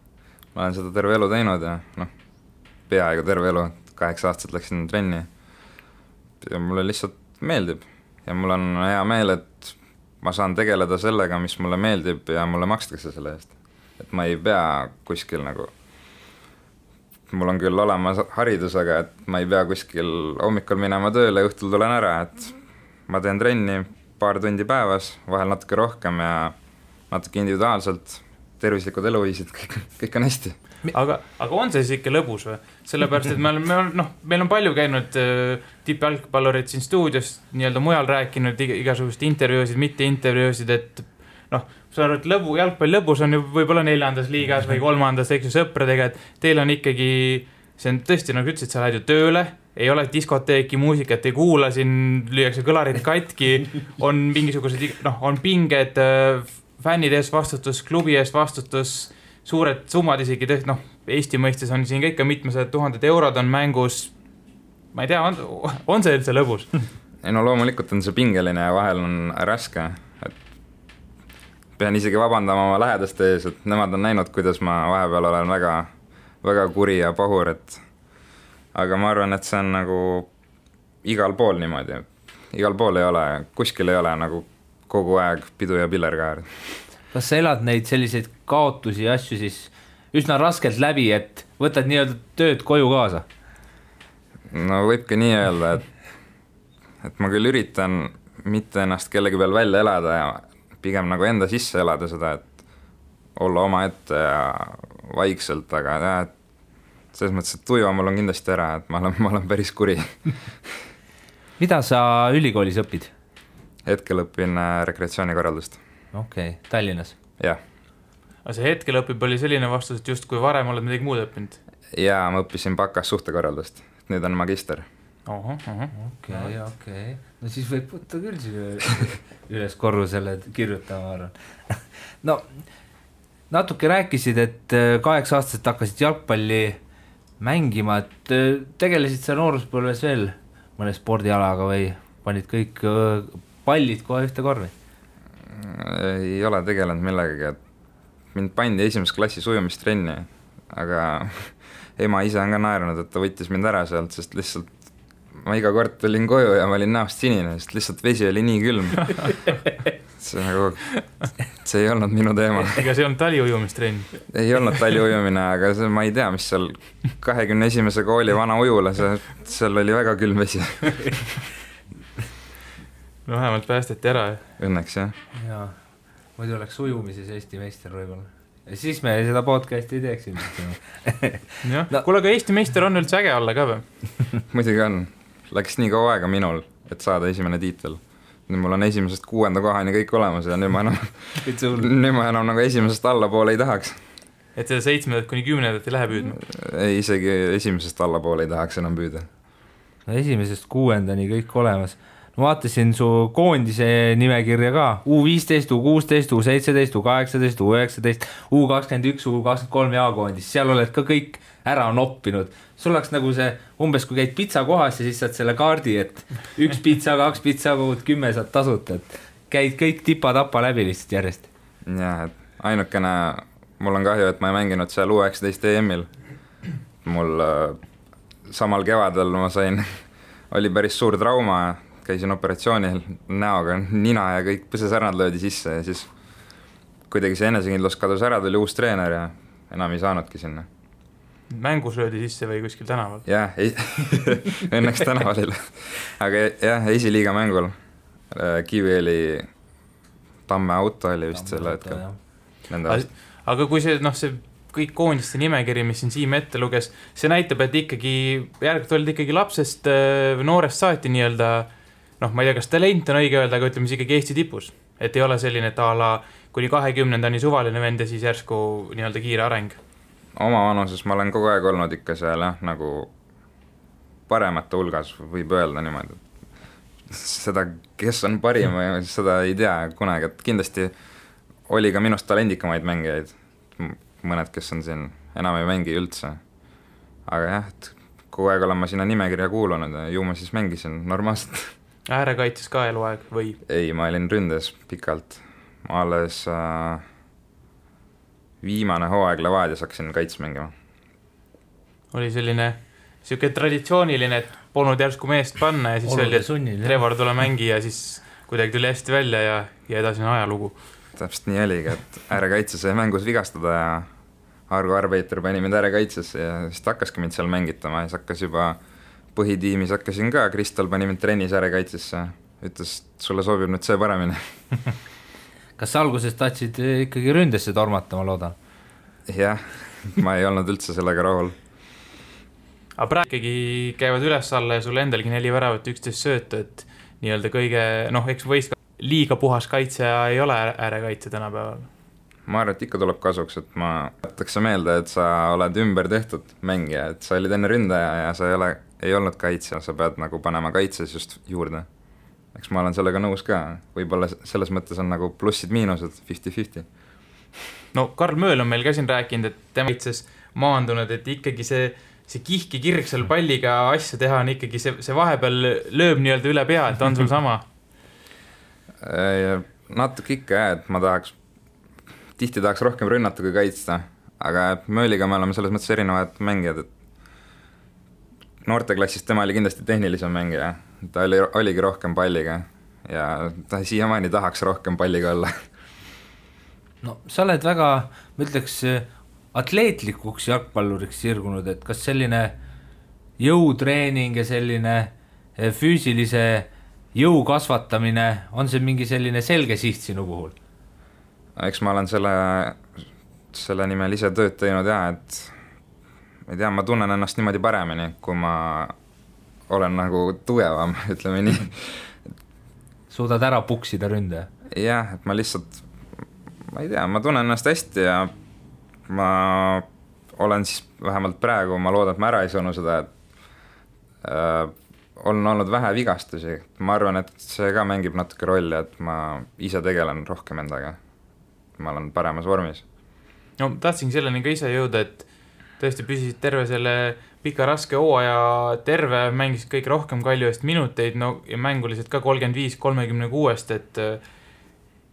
Ma olen seda terve elu teinud ja peaaegu terve elu, 8 aastat läksin trenni. Ja mulle lihtsalt meeldib ja mul on hea meel, et ma saan tegeleda sellega, mis mulle meeldib ja mulle makstakse selle eest. Et ma ei pea kuskil nagu mul on küll olemas haridus, aga et ma ei pea kuskil hommikul minema tööle, õhtul tulen ära, et ma teen trenni paar tundi päevas, vahel natuke rohkem ja natuke individuaalselt, tervislikud eluviisid, kõik on hästi. Aga on see siis ikka lõbus või? Sellepärast, et meil on palju käinud tippjalgpallurid siin stuudios nii-öelda mujal rääkinud igasugust intervjuusid, mitte intervjuusid, et sa arvad, et jalgpall lõbus on ju võib-olla 4. liigas või 3. eks ju sõpradega, et teil on ikkagi, see on tõesti, nagu ütlesid, sa lähed ju tööle, ei ole diskoteeki, muusikat ei kuula, siin lüüakse kõlarid katki, on mingisugused, on pinged, fännide ees vastutus, klubi ees vastutus, suured summad isegi tõesti, Eesti mõistes on siin ikka mitmesed 1000 eurod on mängus, ma ei tea, on see üldse lõbus? Ei loomulikult on see pingeline ja vahel on raske, pean isegi vabandama oma lähedaste ees, et nemad on näinud, kuidas ma vahepeal olen väga, väga kuri ja pahur, aga ma arvan, et see on nagu igal pool niimoodi. Igal pool ei ole, kuskil ei ole nagu kogu aeg pidu ja pillerkaar. Kas sa elad neid selliseid kaotusi ja asju siis üsna raskelt läbi, et võtad nii-öelda tööd koju kaasa? No võibki nii öelda, et ma küll üritan mitte ennast kellegi peal välja elada ja pigem nagu enda sisse elada seda, et olla oma ette ja vaikselt, aga selles mõttes, et tuju mul on kindlasti ära, et ma olen päris kuri. Mida sa ülikoolis õpid? Hetkel õpin rekreatsioonikorraldust. Okei, Tallinnas? Jah. Aga see hetkel õpib oli selline vastus, et just kui varem oled midagi muud õppinud? Jaa, ma õppisin bakas suhtekorraldust. Nüüd on magister. Okei. No siis võib võtta küll üles korrusele kirjutama, arvan. No, natuke rääkisid, et 8-aastaselt hakkasid jalgpalli mängima, et tegelesid sa nooruspõlves veel mõne spordialaga või panid kõik pallid kohe ühte korvi? Ei ole tegelenud millegagi, et mind pandi esimeses klassis ujumistrenni, aga ema ise on ka naeranud, et ta võttis mind ära sealt, sest lihtsalt ma iga kord tulin koju ja ma olin näost sinine, sest lihtsalt vesi oli nii külm. See ei olnud minu teema. Ega see ei olnud taliujumistrenn? Ei olnud taliujumine, aga ma ei tea, mis seal 21. kooli vana ujula, seal oli väga külm vesi. No vähemalt päästeti ära. Õnneks, jah. Jaa, muidu oleks ujumises Eesti meister võib-olla. Ja siis me seda podcasti ei teeks. Kuule, aga Eesti meister on üldse äge olla ka või? Muidugi on. Läks nii kaua aega minul, et saada esimene tiitel. Nüüd mul on 1. 6. kohani kõik olemas ja nüüd ma enam nagu 1. allapoole ei tahaks. Et seda 7. kuni 10. ei lähe püüdma? Ei, isegi 1. allapoole ei tahaks enam püüda. No 1. 6. kõik olemas. No vaatasin su koondise nimekirja ka, U15, U16, U17, U18, U19, U21, U23 jaakoondis, seal oled ka kõik ära noppinud. Sul oleks nagu see, umbes kui käid pitsa kohas ja siis saad selle kaardi, et 1 pitsa, 2 pitsa, 10 saad tasuta, et käid kõik tipa-tapa läbi lihtsalt järjest. Jah, et ainukene, mul on kahju, et ma ei mänginud seal U19 EM-il. Mul samal kevadel ma sain, oli päris suur trauma ja käisin operatsioonil näoga, nina ja kõik põsesärnad löödi sisse ja siis kuidagi see enesekindlus kadus ära, tuli uus treener ja enam ei saanudki sinna. Mängus löödi sisse või kuskil tänaval? Jah, õnneks tänaval. Aga jah, esiliiga mängul Kivieli Tamme auto oli vist selle hetkel. Aga kui see, see kõik koondiste nimekiri, mis siin Siim ette luges, see näitab, et ikkagi järgult olid ikkagi lapsest noorest saati nii-öelda, ma ei tea, kas talent on õige öelda, aga ütleme siis ikkagi Eesti tipus. Et ei ole selline, et ala kuni 20-ndani suvaline vend ja siis järsku nii-öelda kiire areng. Oma vanuses ma olen kogu aeg olnud ikka seal, nagu paremate hulgas võib öelda niimoodi. Seda, kes on parim, seda ei tea kunagi, et kindlasti oli ka minust talendikamaid mängijaid. Mõned, kes on siin, enam ei mängi üldse. Aga jah, et kogu aeg olen ma sinna nimekirja kuulunud ja ju ma siis mängisin normaalselt. Äärekaitses ka eluaeg või? Ei, ma olin ründes pikalt. Ma alles viimane hooaeg Levadias hakkasin kaits mängima. Oli selline traditsiooniline, et polnud järsku meest panna ja siis oli, et Trevor tule mängi ja siis kuidagi tuli hästi välja ja edasi on ajalugu. Täpselt nii oligi, et äärekaitses sai mängus vigastada ja Argo Arbeiter pani mind äärekaitses ja siis hakkaski mind seal mängitama ja siis hakkas juba põhitiimis hakkasin ka, Kristal pani mind trennis äärekaitsesse, ütles, sulle sobib nüüd see paremini. Kas sa alguses tahtsid ikkagi ründesse tormata, ma loodan? Jah, ma ei olnud üldse sellega rahul. Aga praegu ikkagi käivad üles alla ja sul endalgi 4 väravat 11 söötu, et nii-öelda kõige, eks võist liiga puhas kaitse ei ole äärekaitse tänapäeval. Ma arvan, et ikka tuleb kasuks, et ma võtaks meelde, et sa oled ümber tehtud mängija, et sa olid enne ründaja ja sa ei olnud kaitse, sa pead nagu panema kaitses just juurde. Eks ma olen sellega nõus ka, võib-olla selles mõttes on nagu plussid-miinused 50-50. No Karl Mööl on meil ka siin rääkinud, et tema kaitses maandunud, et ikkagi see kihki kirg seal palliga asja teha on ikkagi see vahepeal lööb nii-öelda üle pea, et on sul sama? Natuke ikka jah, et tihti tahaks rohkem rünnata kui kaitsta, aga Mööliga me oleme selles mõttes erinevad mängijad, et noorteklassist tema oli kindlasti tehnilisem mängija, ta oligi rohkem palliga ja ta siiamaani tahaks rohkem palliga olla. No sa oled väga, ma ütleks, atleetlikuks jalgpalluriks sirgunud, et kas selline jõutreening ja selline füüsilise jõu kasvatamine, on see mingi selline selge siht sinu puhul? Eks ma olen selle nimel ise tööd teinud ja, et ma ei tea, ma tunnen ennast niimoodi paremini, kui ma olen nagu tugevam, ütleme nii. Suudad ära puksida ründe? Jah, et ma lihtsalt, ma ei tea, ma tunnen ennast hästi ja ma olen siis vähemalt praegu, ma loodan, et ma ära ei sõnu seda, et on olnud vähe vigastusi, ma arvan, et see ka mängib natuke rolli, et ma ise tegelen rohkem endaga, ma olen paremas vormis. No tahtsingi selleni ka ise jõuda, et tõesti püsisid terve selle pika raske hooaja terve, mängisid kõik rohkem Kalju eest minuteid, no ja mänguliselt ka 35-36, et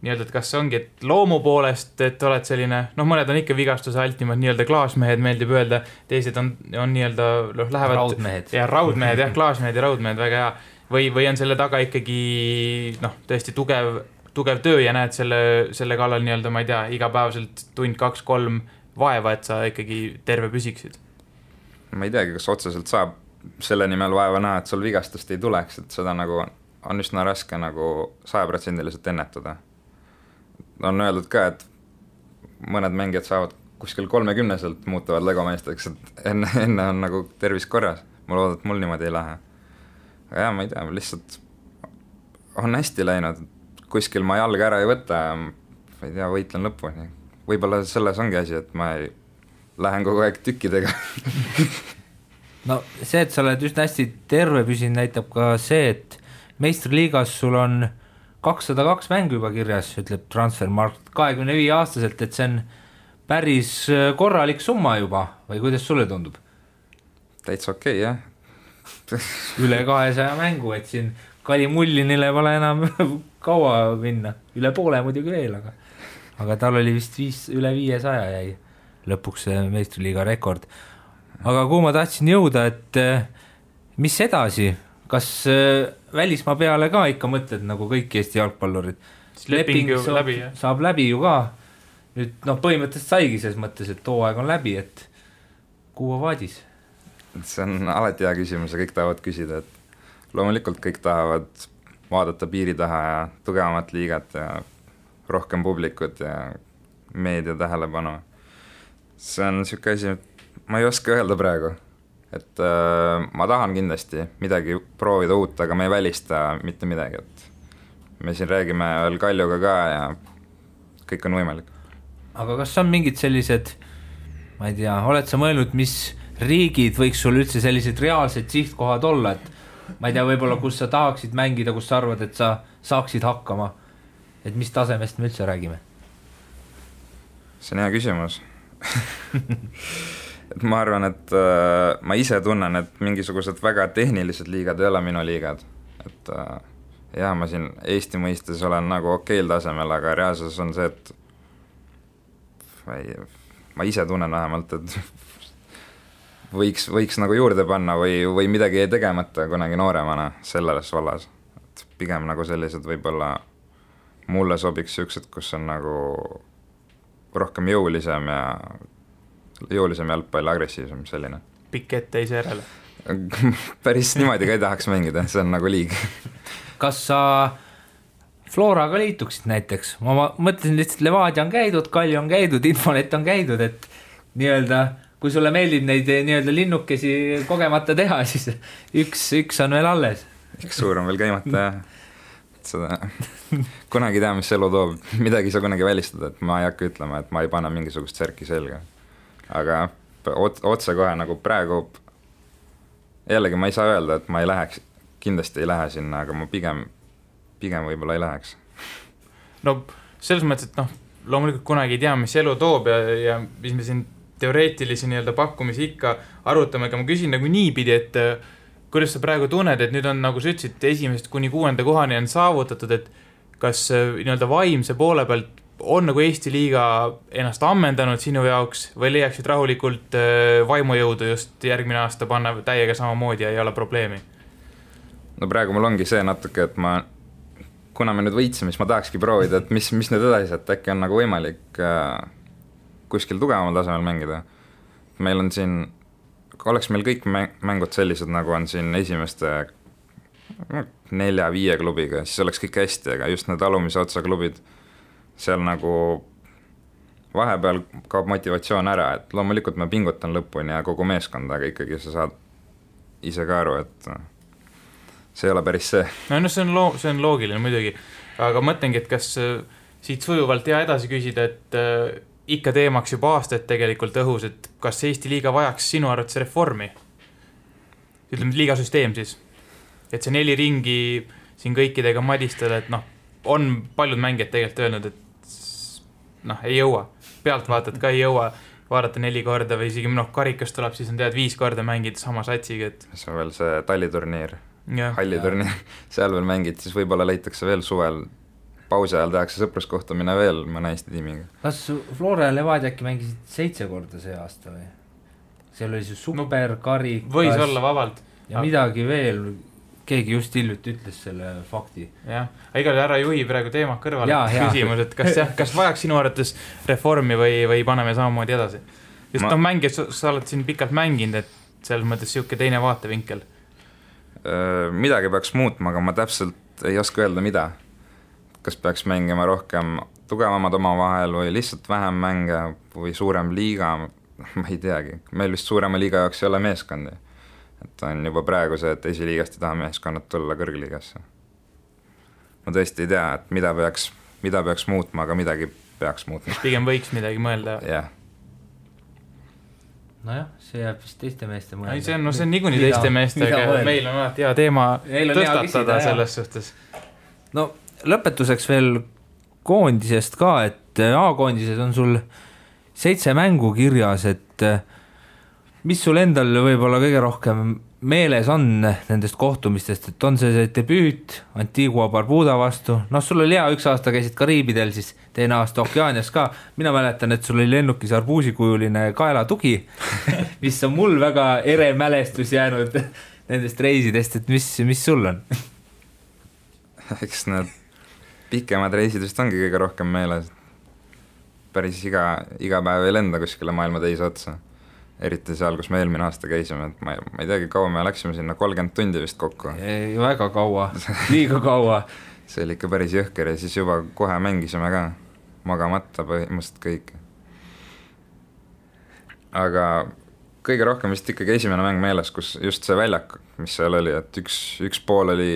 nii-öelda, et kas see ongi, et loomu poolest, et oled selline, noh, mõned on ikka vigastuse altimad, nii-öelda klaasmehed meeldib öelda, teised on nii-öelda, lähevad raudmehed. Ja raudmehed, jah, klaasmehed ja raudmehed, väga hea. Või on selle taga ikkagi, tõesti tugev töö ja näed selle kallal nii-öelda, ma ei tea, igapäevaselt tund 2-3 vaeva, et sa ikkagi terve püsiksid. Ma ei teagi, kas otseselt saab selle nimel vaeva näha, et sul vigastust ei tuleks, et seda nagu on üsna raske nagu 100% ennetada. On öeldud ka, et mõned mängijad saavad kuskil 30-selt muutuvad legomeesteks, et enne on nagu tervis korras. Ma loodan, et mul niimoodi ei lähe. Aga jah, ma ei tea, lihtsalt on hästi läinud. Kuskil ma jalga ära ei võta ja ma ei tea, võitlen lõpuni. Võib-olla selles ongi asi, et ma ei lähen kogu aeg tükkidega. No see, et sa oled üsna hästi terve püsinud, näitab ka see, et meistriliigas sul on 202 mängu juba kirjas, ütleb Transfermarkt 25-aastaselt, et see on päris korralik summa juba, või kuidas sulle tundub? Täitsa okei, jah. Üle 200 mängu, et siin Kali Mullinile pole enam kaua minna, üle poole muidugi veel, aga tal oli vist üle 500 jäi lõpuks see meistriliiga rekord. Aga kuhu ma tahtsin jõuda, et mis edasi? Kas välismaa peale ka ikka mõtled nagu kõik Eesti jalgpallurid? Leping saab läbi ju ka. Nüüd põhimõtteliselt saigi selles mõttes, et hooaeg on läbi, et kuhu vaadis? See on alati hea küsimus ja kõik tahavad küsida, et loomulikult kõik tahavad vaadata piiri taha ja tugevamat liigat ja rohkem publikut ja meedia tähelepanu. See on niisugune asi, ma ei oska öelda praegu. Et ma tahan kindlasti midagi proovida uut, aga me ei välista mitte midagi, et me siin räägime veel Kaljuga ka ja kõik on võimalik. Aga kas on mingid sellised, ma ei tea, oled sa mõelnud, mis riigid võiks sul üldse sellised reaalsed sihtkohad olla, et ma ei tea, võib-olla kus sa tahaksid mängida, kus sa arvad, et sa saaksid hakkama, et mis tasemest me üldse räägime? See on hea küsimus. Et ma arvan, et ma ise tunnen, et mingisugused väga tehnilised liigad ei ole minu liigad. Et jah, ma siin Eesti mõistes olen nagu okeil tasemel, aga reaalsus on see, et ma ise tunnen vähemalt, et võiks nagu juurde panna või midagi ei tegemata kunagi nooremana selles vallas. Et pigem nagu sellised võib-olla mulle sobiks siuksed, kus on nagu rohkem jõulisem jalgpall, agressiivsem selline. Pikk ette teise järele. Päris niimoodi ka ei tahaks mängida, see on nagu liig. Kas sa Floraga liituksid näiteks? Ma mõtlesin lihtsalt, Levadia on käidud, Kalju on käidud, Infonet on käidud, et nii-öelda, kui sulle meeldib neid nii-öelda linnukesi kogemata teha, siis üks on veel alles. Üks suur on veel käimata ja seda kunagi tea, mis elu toob. Midagi sa kunagi välistada, et ma ei hakka ütlema, et ma ei pane mingisugust särki selga. Aga otse kohe nagu praegu jällegi ma ei saa öelda, et ma ei läheks, kindlasti ei lähe sinna, aga ma pigem võib-olla ei läheks. No selles mõttes, et loomulikult kunagi ei tea, mis elu toob ja mis me siin teoreetilisi nii-öelda pakkumisi ikka arutame, aga ma küsin nagu niipidi, et kuidas sa praegu tunned, et nüüd on, nagu sa ütlesid, 1. kuni 6. kohani on saavutatud, et kas nii-öelda vaimse poole pealt on nagu Eesti liiga ennast ammendanud sinu jaoks või leiaksid rahulikult vaimujõudu just järgmine aasta panna täiega samamoodi ja ei ole probleemi? No praegu mul ongi see natuke, et kuna me nüüd võitsime, siis ma tahakski proovida, et mis nüüd edasi, et äkki on nagu võimalik kuskil tugevamal tasemel mängida. Meil on siin, oleks meil kõik mängud sellised, nagu on siin esimeste 4-5 klubiga, siis oleks kõik hästi, aga just need alumise otsa klubid, seal nagu vahepeal kaob motivatsioon ära, et loomulikult ma pingutan lõpuni ja kogu meeskond, aga ikkagi sa saad ise ka aru, et see ei ole päris see. No see on loogiline muidugi, aga mõtlengi, et kas siit sujuvalt hea edasi küsida, et ikka teemaks juba aastaid tegelikult õhus, et kas Eesti liiga vajaks sinu arvates reformi? Ütleme, liigasüsteem siis. et see 4 ringi siin kõikidega madistada, et noh, on paljud mängijad tegelikult öelnud, et noh, ei jõua, pealtvaatajad ka ei jõua vaadata 4 korda või isegi karikas tuleb, siis on tead 5 korda mängida sama satsiga, et see on veel see talliturniir, halliturniir, seal veel mängid, siis võib-olla leitakse veel suvel, pausi ajal tehakse sõpruskohtumine veel mõne Eesti tiimiga. Kas Flora ja Levadia äkki mängisid 7 korda see aasta või? Seal oli see super karikas. Võis olla vabalt. Ja midagi veel, keegi just hiljuti ütles selle fakti. Jah, igal ära juhi praegu teema kõrvale küsimus, et kas vajaks sinu arvates reformi või paneme samamoodi edasi? Just mängijad, sa oled siin pikalt mänginud, et selles mõttes siuke teine vaatevinkel. Midagi peaks muutma, aga ma täpselt ei oska öelda mida. Kas peaks mängima rohkem tugevamad oma vahel või lihtsalt vähem mänge või suurem liiga, ma ei teagi. Meil vist suurema liiga jaoks ei ole meeskondi. Et on juba praegu see, et esiliigast ei taha meeskonnad tulla kõrgliigasse. Ma tõesti ei tea, et mida peaks muutma, aga midagi peaks muutma. Pigem võiks midagi mõelda. Jah. Nojah, see jääb vist teiste meeste mõelda. See on niikuinii teiste meeste, aga meil on alati hea teema tõstatada selles suhtes. No lõpetuseks veel koondisest ka, et A-koondises on sul 7 mängu kirjas, et mis sul endal võib-olla kõige rohkem meeles on nendest kohtumistest, et on see debüüt Antigua Barbuda vastu, sul oli hea, 1 aasta käisid Kariibidel, siis teine aasta Okeaanias ka, mina mäletan, et sul oli lennukis arbuusikujuline kaelatugi, mis on mul väga ere mälestus jäänud nendest reisidest, et mis sul on? Eks need pikemad reisid vist ongi kõige rohkem meeles. Päris iga päev ei lenda kuskile maailma teise otsa. Eriti seal, kus me eelmine aasta käisime. Et ma ei teagi, kaua me läksime sinna 30 tundi vist kokku. Ei, väga kaua, liiga kaua. See oli ikka päris jõhker ja siis juba kohe mängisime ka. Magamata põhimõtteliselt kõik. Aga kõige rohkem vist ikkagi esimene mäng meeles, kus just see väljak, mis seal oli, et üks pool oli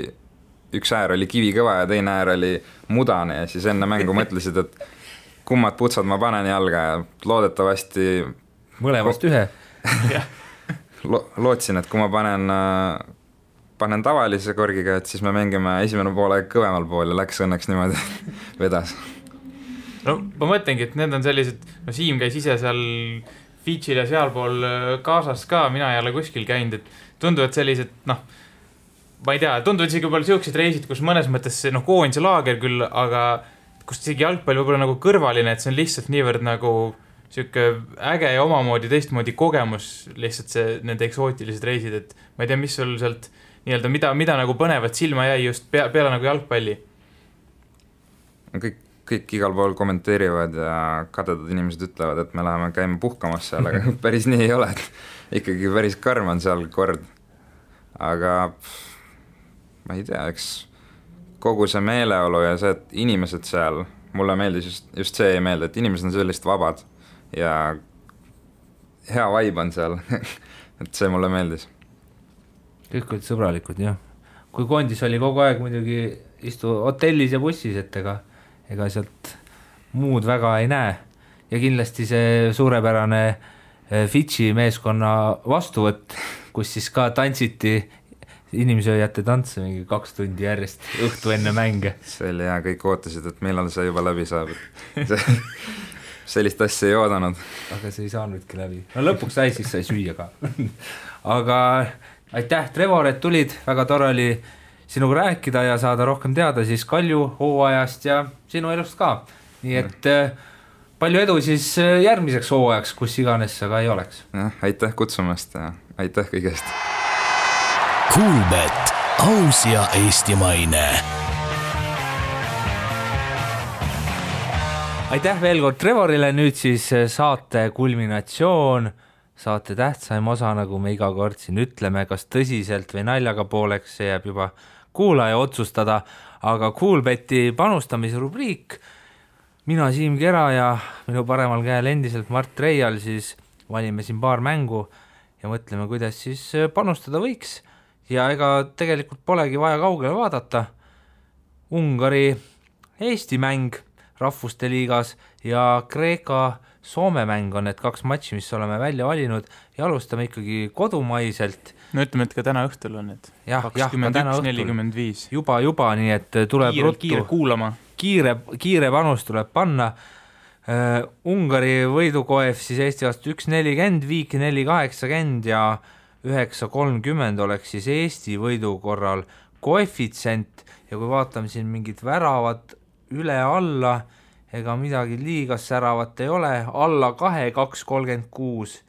üks äär oli kivikõva ja teine äär oli mudane ja siis enne mängu mõtlesid, et kummad putsad ma panen jalga ja loodetavasti mõlemast ühe lootsin, et kui ma panen tavalise korgiga, et siis me mängime esimene poole kõvemal pool ja läks õnneks niimoodi vedas. No ma mõtlengi, et need on sellised, Siim käis ise seal Fidžil ja sealpool kaasas ka, mina ei ole kuskil käinud, et tunduvad sellised, ma ei tea, tunduvad isegi võib-olla siuksed reisid, kus mõnes mõttes see koondise laager küll, aga kus isegi jalgpall võib-olla nagu kõrvaline, et see on lihtsalt niivõrd nagu siuke äge ja omamoodi teistmoodi kogemus, lihtsalt see nende eksootilised reisid, et ma ei tea, mis sul sealt nii-öelda, mida nagu põnevat silma jäi just peale nagu jalgpalli? Kõik igal pool kommenteerivad ja kadedad inimesed ütlevad, et me läheme käima puhkamas seal, aga päris nii ei ole, et ikkagi päris karm on seal kord. Aga ma ei tea, eks kogu see meeleolu ja see, et inimesed seal, mulle meeldis just see ei meelde, et inimesed on sellist vabad ja hea vibe on seal, et see mulle meeldis. Kõik olid sõbralikud, jah. Kui koondis oli kogu aeg muidugi istu hotellis ja bussis, et ega sealt muud väga ei näe. Ja kindlasti see suurepärane Fidži meeskonna vastuvõtt, kus siis ka tantsiti inimsööjate tantse mingi 2 tundi järjest õhtu enne mänge. See oli hea, kõik ootasid, et millal see juba läbi saab. Sellist asja ei oodanud. Aga see ei saanudki läbi. No lõpuks sai, siis sai süüa ka. Aga aitäh, Trevor, et tulid. Väga tore oli sinuga rääkida ja saada rohkem teada siis Kalju hooajast ja sinu elust ka. Nii et palju edu siis järgmiseks hooajaks, kus iganes sa ka ei oleks. Aitäh kutsumast ja aitäh kõigest. Kuulbet, aus ja eestimaine. Aitäh veel kord Trevorile, nüüd siis saate kulminatsioon, saate tähtsaim osa, nagu me iga kord siin ütleme, kas tõsiselt või naljaga pooleks, see jääb juba kuulaja otsustada, aga Kuulbeti panustamise rubriik, mina Siim Kera ja minu paremal käel endiselt Mart Reial, siis valime siin paar mängu ja mõtleme, kuidas siis panustada võiks. Ja ega tegelikult polegi vaja kaugele vaadata. Ungari-Eesti mäng rahvuste liigas ja Kreeka-Soome mäng on need 2 matši, mis oleme välja valinud ja alustame ikkagi kodumaiselt no ütleme, et ka täna õhtul on, et 21:45. Juba, nii et tuleb kiire kuulama. Kiire panus tuleb panna. Ungari võidukoef siis Eesti vastu 1.40, Viik 4.80 ja 9.30 oleks siis Eesti võidu korral koefitsient ja kui vaatame siin mingid väravad üle-alla, ega midagi liiga säravat ei ole, alla 2, 2.36.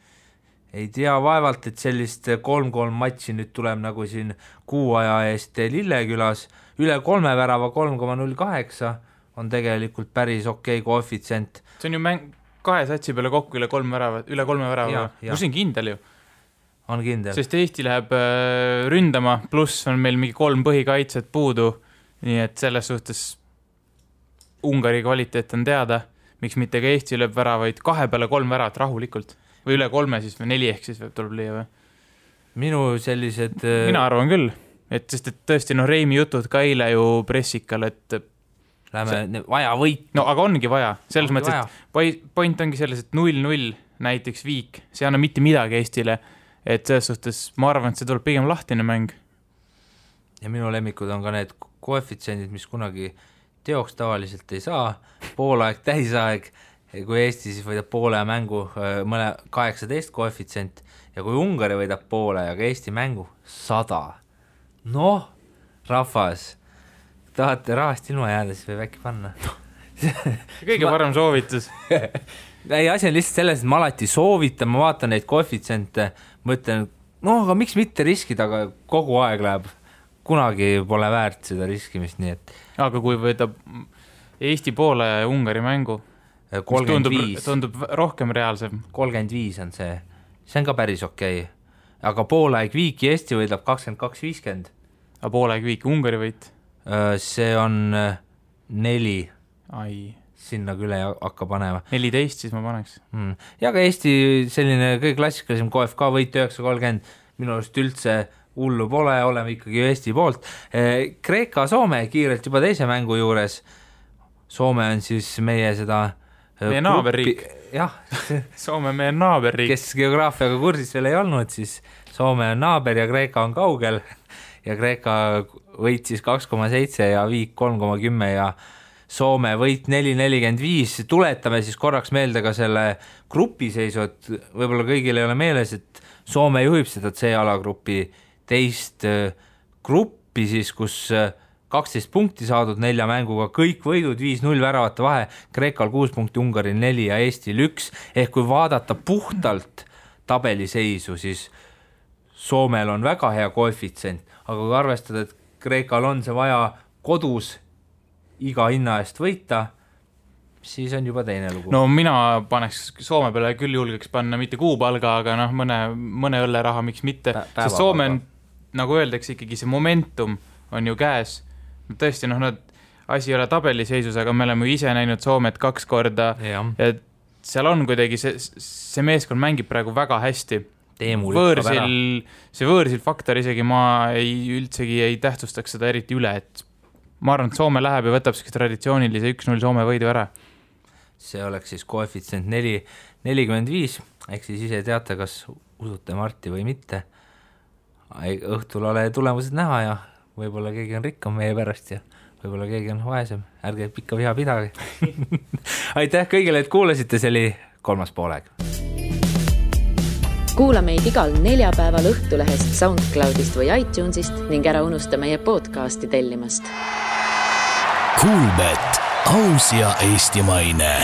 Ei tea vaevalt, et sellist 3-3 matši nüüd tuleb nagu siin kuu aja eest Lillekülas, üle 3 värava 3.08 on tegelikult päris okei koefitsient. See on ju mäng 2 satsi peale kokku üle 3 värava, kus on kindel ju. On kindel. Sest Eesti läheb ründama, pluss on meil mingi 3 põhikaitset puudu, nii et selles suhtes Ungari kvaliteet on teada, miks mitte ka Eesti lööb väravaid 2 peale 3 väravat rahulikult või üle 3 siis või 4 ehk siis tuleb lüüa või? Minu sellised... Mina arvan küll, et sest et tõesti Reimi jutud ka eile ju pressikal, et vaja võit. No aga ongi vaja, selles mõttes, et point ongi selles, et 0-0 näiteks Viik, see anna mitte midagi Eestile, et selles suhtes ma arvan, et see tuleb pigem lahtine mäng. Ja minu lemmikud on ka need koefitsiendid, mis kunagi teoks tavaliselt ei saa, poolaeg, täisaeg, kui Eesti siis võidab poole mängu 18 koefitsient ja kui Ungari võidab poole ja ka Eesti mängu 100. Noh, rahvas, tahate rahast ilma jääda, siis võib äkki panna. Kõige parem soovitus. Ei, asi on lihtsalt selles, et ma alati soovitan, ma vaatan neid koefitsiente, mõtlen, aga miks mitte riskida, aga kogu aeg läheb. Kunagi pole väärt seda riskimist, nii et... Aga kui võidab Eesti poole ja Ungari mängu, 35. Tundub rohkem reaalsem. 35 on see. See on ka päris okei. Aga poolaeg Viiki Eesti võidab 22.50. Aga poolaeg Viiki Ungari võit? See on 4. Ai. Sinna küle hakka panema. 14 siis ma paneks. Ja ka Eesti selline kõige klassikalisem KFK võit 9.30. Minu arust üldse hullu pole, oleme ikkagi Eesti poolt. Kreeka-Soome kiirelt juba teise mängu juures. Soome on siis meie seda... Meie naaberriik. Jah. Soome meie naaberriik. Kes geograafiaga kursis veel ei olnud, siis Soome on naaber ja Kreeka on kaugel. Ja Kreeka võit siis 2.7 ja Viik 3.10 ja Soome võit 4.45. Tuletame siis korraks meelde ka selle grupiseisu, et võib-olla kõigil ei ole meeles, et Soome juhib seda C-alagrupi teist gruppi siis, kus 12 punkti saadud 4 mänguga, kõik võidud 5-0 väravate vahe, Kreekal 6 punkti, Ungaril 4 ja Eestil 1, ehk kui vaadata puhtalt tabeliseisu, siis Soomel on väga hea koefitsient, aga kui arvestada, et Kreekal on see vaja kodus iga hinna eest võita, siis on juba teine lugu. No mina paneks Soome peale küll julgeks panna mitte kuupalga, aga mõne õlleraha, miks mitte, sest Soome on, nagu öeldakse, ikkagi see momentum on ju käes. Tõesti, asi ei ole tabeliseisus, aga me oleme ise näinud Soomet 2 korda ja seal on kuidagi see meeskond mängib praegu väga hästi. See võõrsil faktor isegi ma üldsegi ei tähtsustaks seda eriti üle, et ma arvan, et Soome läheb ja võtab traditsioonilise 1-0 Soome võidu ära. See oleks siis koefitsient 4.45, ehk siis ise teate, kas usute Marti või mitte. Õhtul ole tulemused näha ja võib-olla keegi on rikkam meie pärast ja võib-olla keegi on vaesem. Ärge pikka viha pidage. Aitäh kõigile, et kuulasite, see oli 3. poolaeg. Kuula meid igal neljapäeval Õhtulehest, SoundCloudist või iTunesist ning ära unusta meie podcasti tellimast. Kuulbet, aus ja eestimaine.